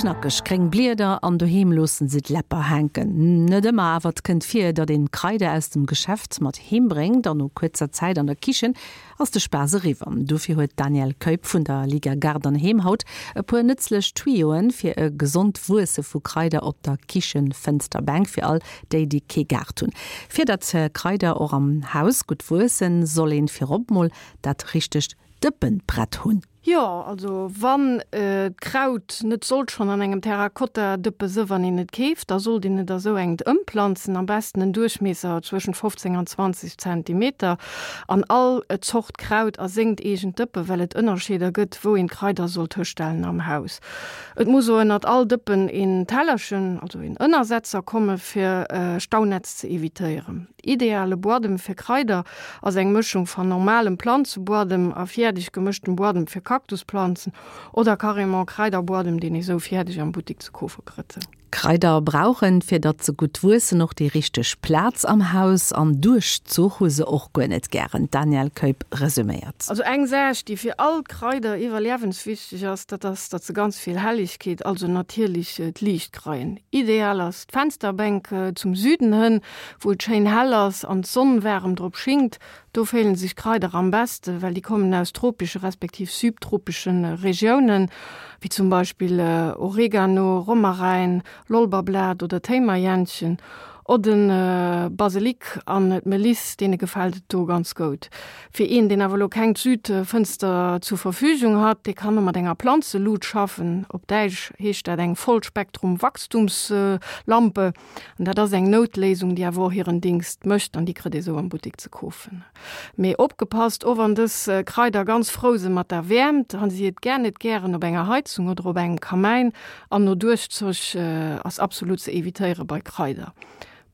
Knackeg gréng Blieder an doheem loossen se d'Läpper hänken. Net ëmmer, awer et kënnt vir, datt een d'Kraider aus dem Geschäft mat heem bréngt an no kuerzer Zäit an der Kichen ass de Spaass eriwwer. Dofir huet d'Danièle Keup vun der Liga Gaart an Heem haut e puer nëtzlech Tuyauxen fir e gesond Wuesse vu Kraider op der Kichenfënsterbänk fir all déi, déi kee Gaart hunn. Fir datt Kraider och am Haus gutt wuessen, soll een virop mol dat richtegt Dëppenbrett hunn. Jo, also wann d'Kraut net sollt schonn an engem Terrakotta-Dëppe së wann een et keeft, da sollt een et a sou engt ëmplanzen, am besten en Duerchmiesser zwëschent 15 an 20 Zentimeter, an all Zort Kraut a sengt eegent Dëppe, well et Ënnerscheeder gëtt, wou een d'Kraider sollt hëstellen am Haus. Et muss o ënnert all Dëppen een Tellerchen, also een Ënnersetzer komme fir Staunätz ze evitéieren. Ideale Buadem fir Kraider ass eng Mëschung van normalem Planzebuadem a fiärdeg gemëschtem Buadem fir Kaktusplanzen oder carrément Kraiderbuadem, deen ee sou fiärdeg am Buttik ze koofe krëtt. Kraider brauchen, fir datt se gutt wuessen, och déi richteg Plaz am Haus an Duerchzuch hu se och guer net gären. D'Danièle Keup resuméiert. Also eng Saach, déi fir all Kraider iwwerliewenswichteg ass, dat ass, datt se ganz vill Helligkeet, also natierlech d'Liicht kreien. Ideal ass d'Fensterbänk zum Süden hënn, wou et schéin hell ass an d'Sonn waarem drop schingt. Do féilen sech d'Kraider am beste, well déi kommen aus tropesche respektiv subtropesche Regiounen, wéi zum Beispill Oregano, Romaräin, Lolberblat oder Téimerjännchen. O de Baselik an d'Meliss, deene gefält et do ganz goud. Fir een, deen awer elo keng Südfënster zur Verfügung hat, dee kann och mat enger Planzelut schaffen. Op Däitsch heescht dat eng Vollspektrum-Wachstumslampe. An dat ass eng Noutléisung, déi awer och hiren Dingst mécht an déi kritt ee sou am Buttik ze kofen. Mee opgepasst, och wann dës Kraider ganz frou se mat der Wäermt, han si et gär net gären op enger Heizung oder op engem Kamäin an no Duerchzoch ass absolut ze evitéiere bei Kraider.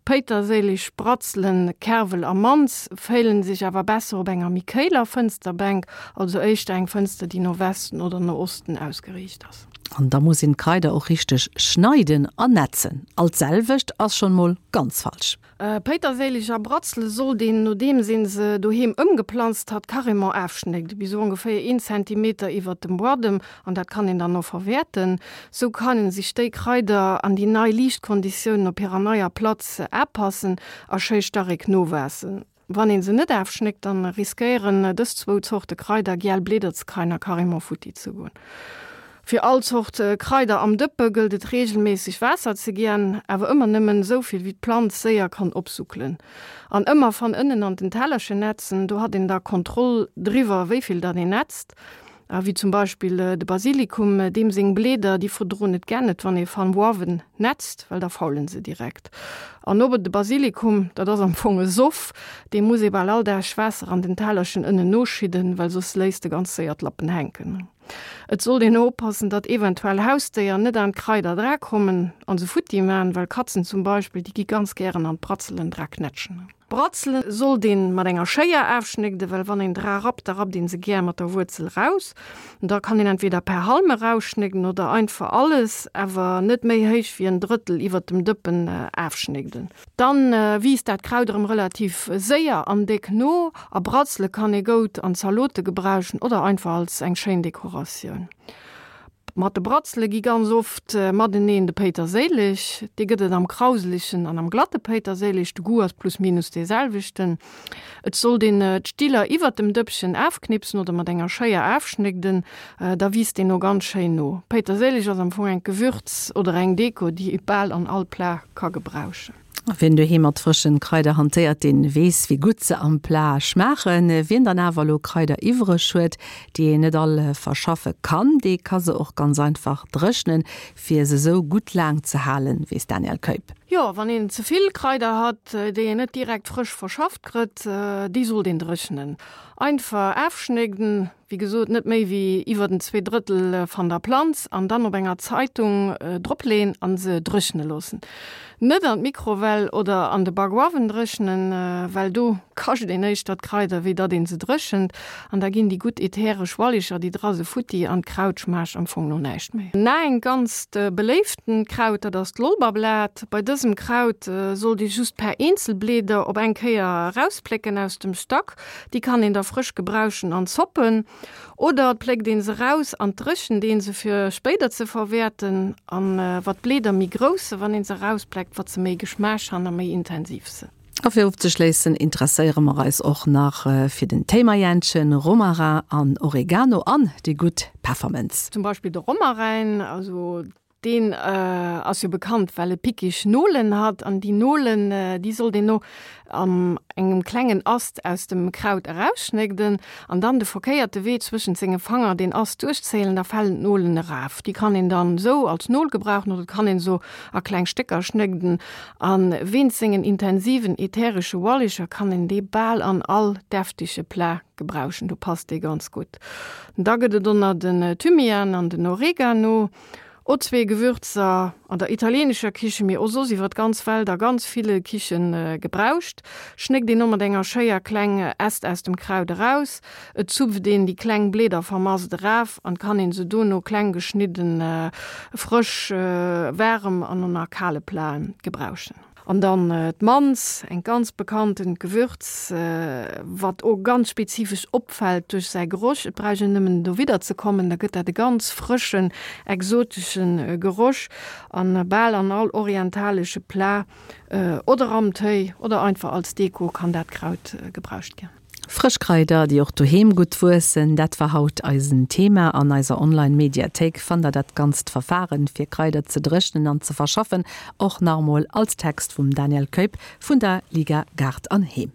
Péiterséileg, Bratzelen, Kerwel a Manz féilen sech awer besser op enger méi kéiler Fënsterbänk, also éischter eng Fënster, déi no Westen oder no Osten ausgeriicht ass. An da muss een d'Kraider och richteg schneiden an netzen. All d'selwecht ass schon mol ganz falsch. Péiterséileg a Bratzele sollt een, nodeems een se doheem ëmgeplanzt hat, carrément aafschnégden, bis ongeféier een Zentimeter iwwert dem Buadem, an dat kann een dann och verwäerten. Sou kannen sech déi Kraider an déi nei Liichtkonditiounen op hirer neier Platz aapassen a schéi starek nowaassen. Wann een se net aafschnéckt, dann riskéieren dës zwou Zorte Kraider giel Blieder ze kreien a carrément futti ze goen. Fir all Zort Kraider am Dëppe gëllt et regelméisseg Waasser ze giän, awer ëmmer nëmmen esou vill wéi d'Planz séier kann opsuckelen. An ëmmer van ënnen an den Tellerchen nätzen, do hat een da Kontroll driwwer wéivill datt een nätzt. A wéi zum Beispill de Basilikum, deem seng Bleeder, déi verdroen et gär net, wann ee van uawen nätzt, well da faulen se direkt. An obe de Basilikum, dat ass am Fong e Soff, deem muss ee bal all Dag Waasser an den Tellerchen ënnen noschidden, well soss léisst e ganz séier d'Lappen hänken. Et sollt een oppassen, datt eventuell Hausdéier net aan d'Kraider dra kommen an se futti man, well Katzen zum Beispill, déi gi ganz gären an d'Bratzelen dra knätschen. Bratzelen sollt een mat enger Schéier aafschnégden, well wann een dra rappt, da rappt een se gär mat der Wuerzel raus. Da kann een entweder per Halm erausschnégden oder einfach alles, awer net méi héich wéi en Drëttel iwwert dem Dëppen aafschnégden. Dann wiisst dat Kraut erëm relativ séier an déck no. A Bratzele kann ee goud an Zalote gebrauchen oder einfach als eng schéin Dekoratioun. Mat de Bratzele gi ganz oft mateneen de Péiterséileg. Dee gëtt et am krauselegen an am glatte Péiterséileg. De Goût ass plus minus dee selwechten. Et sollt een d'Stiller iwwert dem Dëppchen afknipsen oder mat enger Schéier afschnégden, da wiisst deen o ganz schéin no. Péiterséileg ass am Fong engt Gewürz oder eng Deko, déi ee bal an all Plat ka gebrauchen. Wien doheem mat frëschen Kraider hantéiert, deen weess wéi gutt se am Plat schmaachen. Wien dann awer elo Kraider iwwreg huet, déi een net all verschaffe kann, dee ka se och ganz einfach dréchnen, fir se sou gutt laang ze halen, weess d'Danièle Keup. Jo, wann een ze vill Kraider hat, déi een net direkt frësch verschafft krëtt, déi sollt een dréchnen. Einfach afschnégden, Wéi gesot, net méi wéi iwwer den 2 Drëttel van der Planz an dann op enger Zeitung drop leen an se dréchne loossen. Net an d'Mikrowell oder an de Bakuawen dréchnen, well do kascht een éischter d'Kraider wéi datt een se dréchent an da ginn déi gutt ätheresch Wallicher déi dra se futti an d'Kraut schmaacht am Fong no näischt méi. Na eng ganzt beléiften Kraut, dat ass d'Lolberblat. Bei dësem. dësem Kraut sollt ee just per Eenzelblieder op eng Kéier erausplécken aus dem Stack. Déi kann een da frësch gebrauchen an Zoppen. Oder et pléckt een se raus an dréchent een se fir spéider ze verwäerten. An wat d'Blieder méi grouss se wann een se erauspleckt, wat se méi Geschmaasch han a méi intensiv sen. A fir ofzeschléissen interesséiere mer eis och nach fir den Téimayänchen, Romarin an Oregano an déi gutt Peffermënz. Zum Beispill de Romarin, also deen ass jo bekannt well e pickeg Nolen hat an déi Nolen déi sollt een no an engem klengen Ast aus dem Kraut erausschnégden an dann de verkéierte Wee zwëschent senge Fanger deen Ast duerchzéilen, da falen d'Nolen eraf. Déi kann een dann esou als Nol gebrauchen oder et kann een se a kleng Stécker schnégden A wéinst sengen intensiven ätheresche Ualeger kann een dee bal an all deftege Plat gebrauchen, do passt dee ganz gutt. Da gëtt et och nach den Thymian an den Oregano, o zwee Gewürzer an der italienescher Kichen, mee och soss iwwer d'ganz Welt a ganz ville Kiche gebrauscht. Schnéckt een o mat enger Schéier kleng Äst aus dem Kraut eraus, Et zupft een déi kleng Bleeder vermast eraf an kann een se dono kleng geschnidden frësch, waarem an och nach kale Platen gebrauchen. An dann d'Manz, eng ganz bekanntent Gewürz, wat o ganz spezifesch opfällt duerch säi Geroch. Et bräuch een nëmmen dowidder ze kommen, da gëtt dat e ganz frëschen, exoteschen Geroch an bal an all orientalesche Plat oder am Téi oder einfach als Deko kann dat Kraut gebrauscht ginn. Frësch Kraider, déi och doheem gutt wuessen, dat war haut eisen Thema. An eiser Online-Mediathéik fannt der dat ganzt Verfaren, fir Kraider ze dréchnen an ze verschaffen, och nach emol als Text vum Daniel Keup vun der Liga Gaart an Heem.